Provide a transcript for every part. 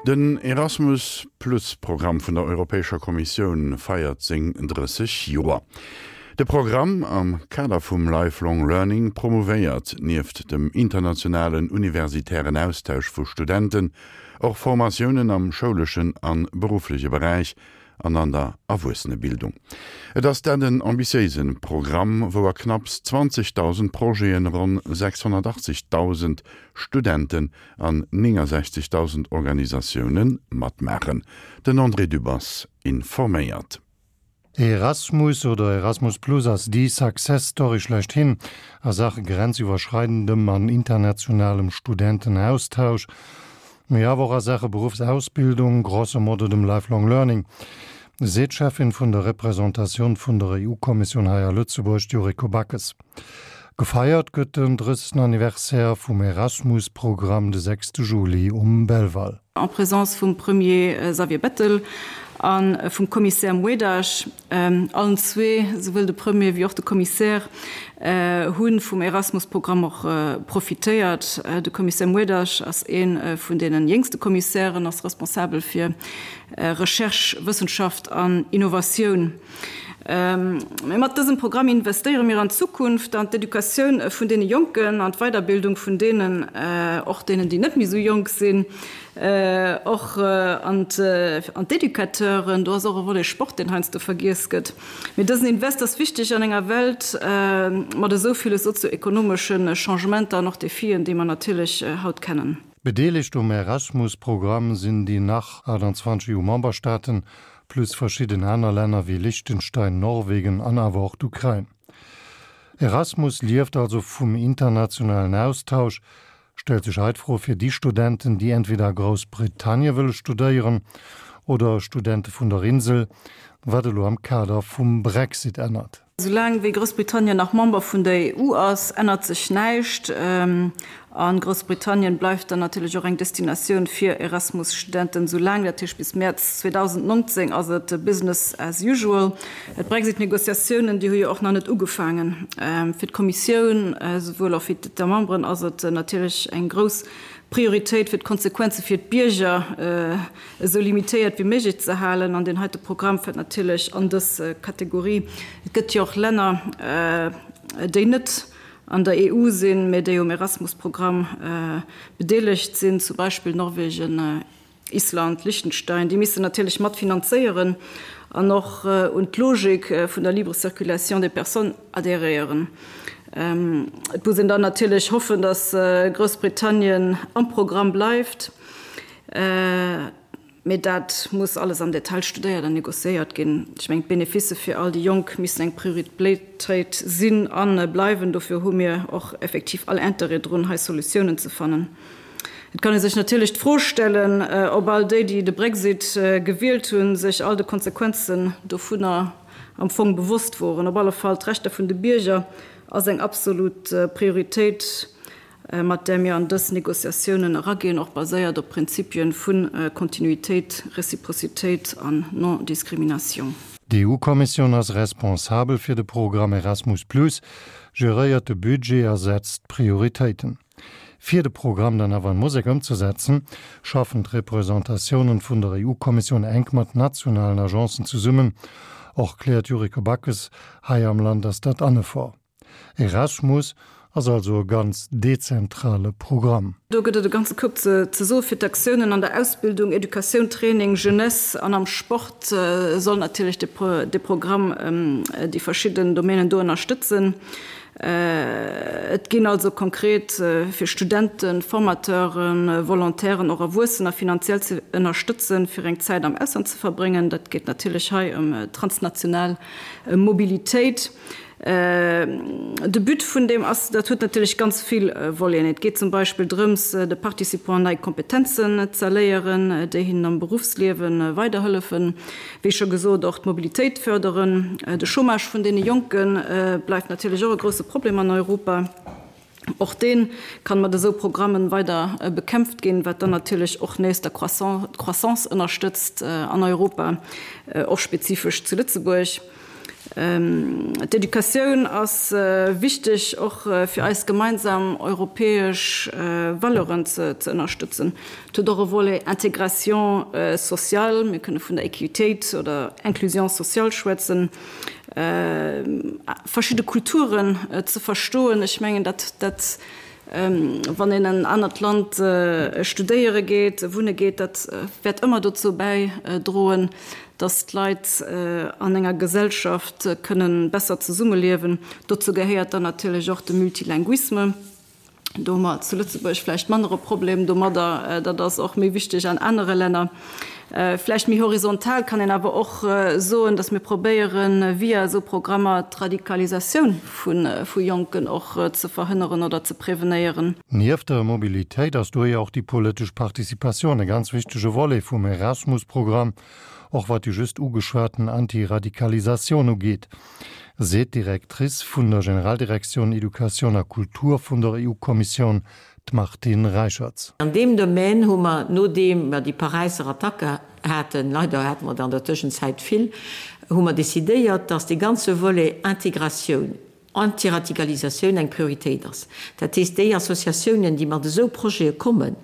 Den Erasmus Plus Programm vun der Europäescher Kommissioun feiert seng 30 Joer. De Programm am Kader vum Lifelong Learning promouvéiert nieft dem internationalen universitären Austausch vu Studenten och Formatiounen am schouleschen an beruffleche Beräich an an der Erwuessenebildung. Et ass dat en ambitiéise Programm, wou a knapps 20.000 Projeten ronn 680.000 Studenten an 69.000 Organisatioune matmaachen. Den André Dübbers informéiert. Erasmus oder Erasmus Plus ass déi Success Story schlechthin a Saache grenziwwerschreidendem an internationalem Studentenaustausch, mee awer och a Saache Beruffsausbildung, grosso modo dem Lifelong Learning, seet d'Cheffin vun der Representatioun vun der EU-Kommissioun hei a Lëtzebuerg, d'Yuriko Backes. Gefeiert gëtt den 30. Anniversaire vum Erasmus-Programm de 6 Juli um Belval. En présence vum Premier Xavier Bettel a vum Commissaire Moedas. Allen zwee, souwuel de Premier wéi och de Commissaire, hu vum Erasmus-Programm och profitéiert. De Commissaire Moedas ass ee vun deene jéngste Commissairen, ass responsabel fir Recherche, Wëssenschaft an Innovatioun. Mee mat dësem Programm investéiere mir an d'Zukunft, an d'Educatioun vun deene Jonken, an d'Weiderbildung vun deenen, och deenen, déi net méi esou jonk sinn, och an d'Educateuren. Do ass och e Volet Sport, deen heiansdo vergiess gëtt. Mee dësen Invest ass wichteg an enger Welt mat esou ville sozio-ekonomesche Changementer an och Defien, déi mer natierlech haut kennen. Bedeelegt um Erasmus-Programm sinn déi nach 28 EU-Memberstaaten, plus verschidden aner Länner wéi Liechtenstein, Norwegen an awer och d'Ukrain. Erasmus lieft also vum internationalen Austausch. Stellt sech hei d'Fro fir déi Studenten, déi entweder a Groussbritannie wëlle studéieren oder Studente vun der Insel, wat elo am Kader vum Brexit ännert. Soulaang wéi Groussbritannien nach Member vun der EU ass, ännert sech näischt. A Groussbritannien bleift dann natierlech och eng Destinatioun fir Erasmus-Studenten, soulaang, dat heescht bis Mäerz 2019, ass et Business as usual. D'Brexit-Negociatiounen, déi hu jo och nach net ugefaangen. Fir d'Kommissioun, esouwuel och fir d'Etats membres ass et natierlech eng grouss Prioritéit, fir d'Konsequenze fir d'Bierger esou limitéiert wéi méiglech ze halen. An deen heite Programm fält natierlech an dës Kategorie. Et gëtt jo och Länner, déi net an der EU sinn, mä déi um Erasmus-Programm bedeelegt sinn, zum Beispill Norwegen, Island, Liechtenstein. Déi missten natierlech mat finanzéieren an och un d'Logik vun der libre circulation des personnes adhéréieren. Et muss een dann natierlech hoffen, datt Groussbritannien am Programm bleift. Mee dat muss alles am Detail studéiert an négociéiert ginn. Ech mengen, d'Beneficë fir all déi Jonk missen eng Prioritéit sinn a bleiwen. Dofir hu mir och effektiv all Interêt drun, hei Solutiounen ze fannen. Et kann ee sech natierlech d'Fro stellen, ob all déi, déi de Brexit gewielt hunn, sech all de Konsequenzen dovunner am Fong bewosst woren. Op alle Fall, d'Rechter vun de Bierger ass eng absolut Prioritéit. mat där mir an dës Négociatiounen eraginn, och baséiert op Prinzipien vu Kontinuitéit, Reciprocitéit an Non-Discrimination. D'EU-Kommissioun ass responsabel fir de Programm Erasmus Plus, geréiert de Budget a setzt d'Prioritéiten. Fir de Programm dann awer an Musek ëmzesetzen, schaffen d'Representatiounen vun der EU-Kommissioun enk mat nationalen Agencen zesummen. Och kläert Yuriko Backes, hei am Land ass dat an Effort. Erasmus ass also e ganz dezentrale Programm. Do gëtt et e ganze Koup ze soe fir d'Aktiounen an der Ausbildung, Educatioun, Training, Jeunesse an am Sport soll natierlech de Programm déi verschidden Domänen do ënnerstëtzen. Et ginn also konkret fir Studenten, Formateuren, Volontairen, och Erwuessener finanziell ze ënnerstëtzen, fir eng Zäit am Ausland ze verbréngen. Dat geet natierlech hei ëm transnational Mobilitéit. De But vun deem ass, dat huet natierlech ganz vill Voleten. Et geet zum Beispill drëms, de Participants nei Kompetenzen z'erléieren, déi hinnen am Beruffsliewe weiderhëllefen. Wéi scho gesot, och d'Mobilitéit fërderen. De Chômage vun deene Jonke bleift natierlech och e grousse Problem an Europa. Och dee kann mat esou Programmen weider bekämpft ginn, wat dann natierlech och nees der Croissance ënnerstëtzt an Europa, och spezifesch zu Lëtzebuerg. D'Educatioun ass wichteg och fir eis gemeinsam europäesch Valeuren ze ënnerstëtzen. Et huet och e Volet Intégration sociale, mir kënne vun der Equitéit oder Inclusion sociale schwätzen, verschidde Kulturen ze verstoen. Ech mengen, dat, dat, wann een en anert Land studéiere geet, wunne geet, dat wäert ëmmer dozou bäidroen, dass d'Leit an enger Gesellschaft kënne besser zesummeliewen. Dozou gehéiert dann natierlech och de Multilinguisme. Do hu mer zu Lëtzebuerg vläicht manner e Problem domadder. Dat ass och méi wichteg an anere Länner. Vläicht méi horizontal kann een awer och soen, dass mir probéieren, via esou Programmer d'Radikalisatioun vu Jonken och ze verhënneren oder ze prevenéieren. Nieft der Mobilitéit ass dohier och déi politesch Participatioun e ganz wichtege Volet vum Erasmus-Programm, och wat déi just ugeschwaten Antiradikalisatioun ugeet. Seet d'Directrice vun der Generaldirektioun Educatioun a Kultur vun der EU-Kommissioun, d'Martine Reicherts. An deem Domaine hu mer, nodeem mer déi Paräisser Attacke haten, leider hate mer der an der Tëschenzäit vill, hu mer decidéiert, dass dee ganze Volet Integratioun, Antiradikalisatioun eng Prioritéit ass. Dat heescht, déi Associatiounen, déi mat esou Projete kommen,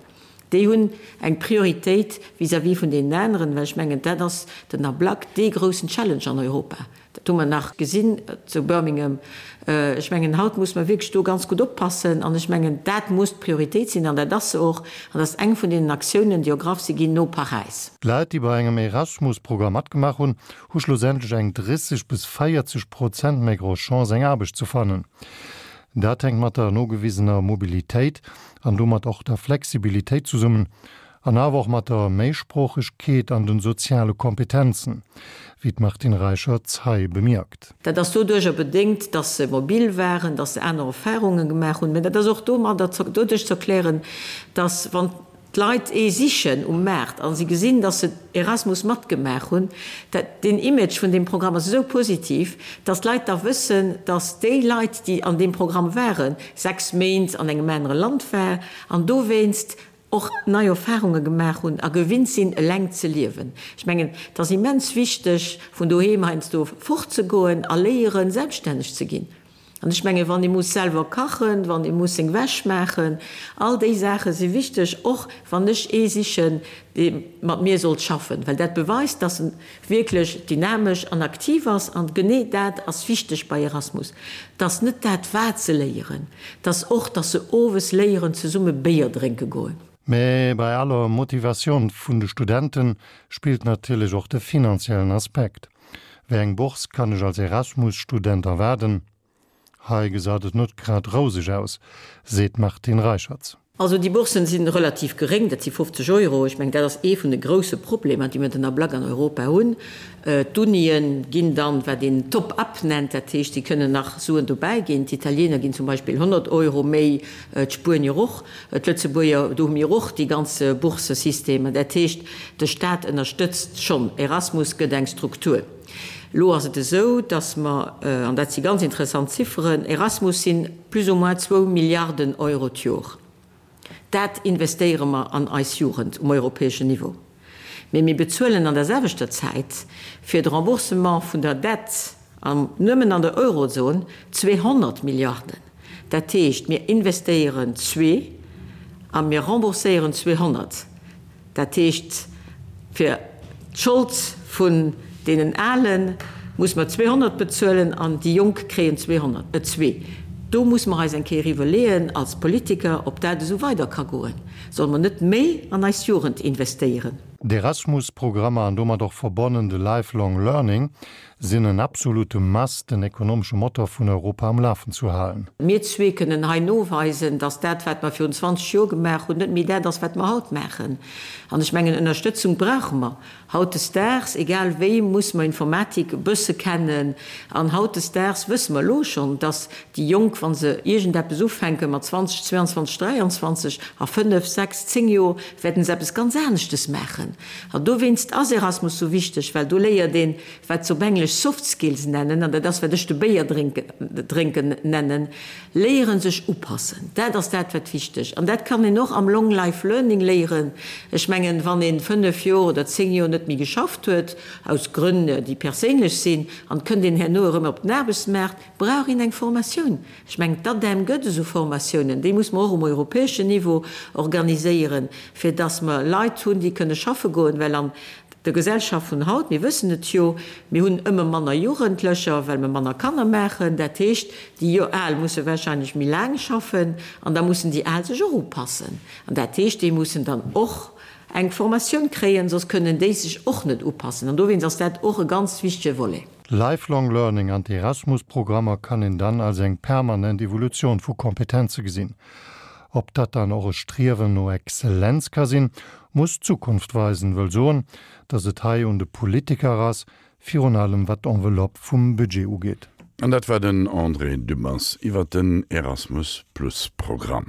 déi hunn eng Prioritéit vis-à-vis vun deenen aneren, well ech mengen, dat ass den Ablack dee groussen Challenge an Europa. Dat hu mer nach gesinn zu Birmingham. Ech mengen, haut muss mer wierklech do ganz gutt oppassen. An ech mengen, dat muss d'Prioritéit sinn, an dat ass se och. An dat ass eng vun deenen Aktiounen, déi ergraff si ginn no Paräis. D'Leit, déi bei engem Erasmus-Programm matgemaach hunn, hu schlussendlech eng 30 bis 40 Prozent méi grouss Chance, eng Aarbecht ze fannen. Dat hänkt mat der nogewisener Mobilitéit an domat och der Flexibilitéit zesummen, An awer och mat der Méisproochegkeet an den soziale Kompetenzen, wéi d'Martine Reicherts hei bemierkt. Dat ass doduercher bedéngt, dass se mobil waren, dass se aner Erfahrunge gemaach hunn. Mä dat ass och domadder, doduerch ze erklären, dass wann d'Leit ee sichen um Maart a si gesinn, dass se Erasmus matgemaach hunn, dat, deen Image vun deem Programm ass esou positiv, dass d'Leit da wëssen, dass déi Leit, déi an deem Programm waren, 6 Méint an engem anere Land war an dowéinst och nei Erfahrunge gemaach hunn a gewinnt sinn, eleng ze liewen. Ech mengen, et ass immens wichteg, vun doheem heiansdo fortzegoen a léieren, selbststänneg ze ginn. An ech mengen, wann ee muss selwer kachen, wann ee muss seng Wäsch maachen, all déi Saache si wichteg, och wann ech ee sichen, dee mat mir sollt schaffen, well dat beweist, dass en wierklech dynamesch an aktiv ass. An genee dat ass wichteg bei Erasmus, dass net dat wat se léieren, dass och, dass se owes léieren zesumme Béier drénke goen. Mä bei aller Motivatioun vun de Studente spillt natierlech och de finanziellen Aspekt. Wéi eng Bourse kann ech als Erasmus-Student erwaarden? Hei gesaut et net grad rouseg aus, seet d'Martine Reicherts. Also déi Bourssen si relativ geréng, dat si 50 Euro. Ech mengen, dat ass ee vun de grousse Problemer, déi mir den Ablack an Europa hunn. D'Unien ginn dann, wat een Top-up nennt, dat heescht, si kënnen nach Suen dobäi ginn. D'Italiener ginn zum Beispill 100 Euro méi, d'Spuenier och, d'Lëtzebuerger, do hu mir och déi ganz Boursesystemer. Dat heescht, de Staat ënnerstëtzt schonn. Erasmus gëtt eng Struktur. Elo ass et esou, datt mer, an dat si ganz interessant Zifferen, Erasmus si plus ou moins zwou Milliarden Euro d'Jor. Dat investéiere mer an eis Jugend um europäeschen Niveau. Mee mir bezuelen an der selwechter Zäit fir de Remboursement vun der Dette, an nëmmen an der Eurozon, 200 Milliarden. Dat heescht, mir investéieren zwee a mir rembourséieren 200. Dat heescht, fir d'Schold vun deenen Ale muss mer 200 bezuelen an déi Jonk kréien 200, zwee. Do muss mer eis eng Kéier iwwerleeën als Politiker, ob dat esou weider ka goen. Solle mer net méi an eis Jugend investéieren? D'Erasmus-Programmer an domat och verbonnen de Lifelong Learning sinn en absolute Must, den ekonomesche Motor vun Europa am Lafen zu halen. Mir zwee kënnen hei noweisen, dass dat, wat mer virun 20 Joer gemaach hunn, net méi dat ass, wat mer haut maachen. An ech mengen, Ënnerstëtzung brauche mer hautdesdaags. Egal wéi muss mer Informatik e bësse kennen. An hautdesdaags wësse mer elo schonn, dass déi Jonk, wa se iergendeppes ufänke mat 20, 22, 23, a fënnef, sechs, zéng Joer wäerten se eppes ganz aneschtes maachen. maachen. An dowéinst ass Erasmus sou wichteg, well do léiert een, wat se op Englesch soft skills nennen, an dat ass, wat ech de Béier drénken nennen, léieren sech upassen. Dat ass dat, wat wichteg. An dat kann een och am Long Life Learning léieren. Ech mengen, wann ee 5 Joer oder 10 Joer net méi geschafft huet, aus Grënn, déi perséinlech sinn, an et kënnt een herno erëm op den Aarbechtsmaart, brauch een eng Formatioun. Ech mengen, d'ADEM gëtt esou Formatiounen, déi muss mer och um europäeschen Niveau organiséieren, fir dass mer Leit hunn, déi kënne schaffe goen, well an der Gesellschaft vun haut, mir wëssen et jo, mir hunn ëmmer manner Jugendlecher, well mer manner Kanner maachen. Dat heescht, déi Al musse wahrscheinlech méi laang schaffen an da mussen déi Al sech och upassen. An dat heescht, déi mussen dann och eng Formatioun kréien, soss kënnen déi sech och net upassen. An dowéinst ass dat och e ganz wichtege Volet. Lifelong Learning an d'Erasmus-Programmer kann een dann als eng permanent Evolutioun vu Kompetenze gesinn. Ob dat dann och e Striewen no Exzellenz ka sinn, muss d'Zukunft weisen, wëll soen, datt et hei un de Politiker ass, virun allem wat d'Enveloppe vum Budget ugeet. An dat war den André Dübbers iwwer den Erasmus-Plus-Programm.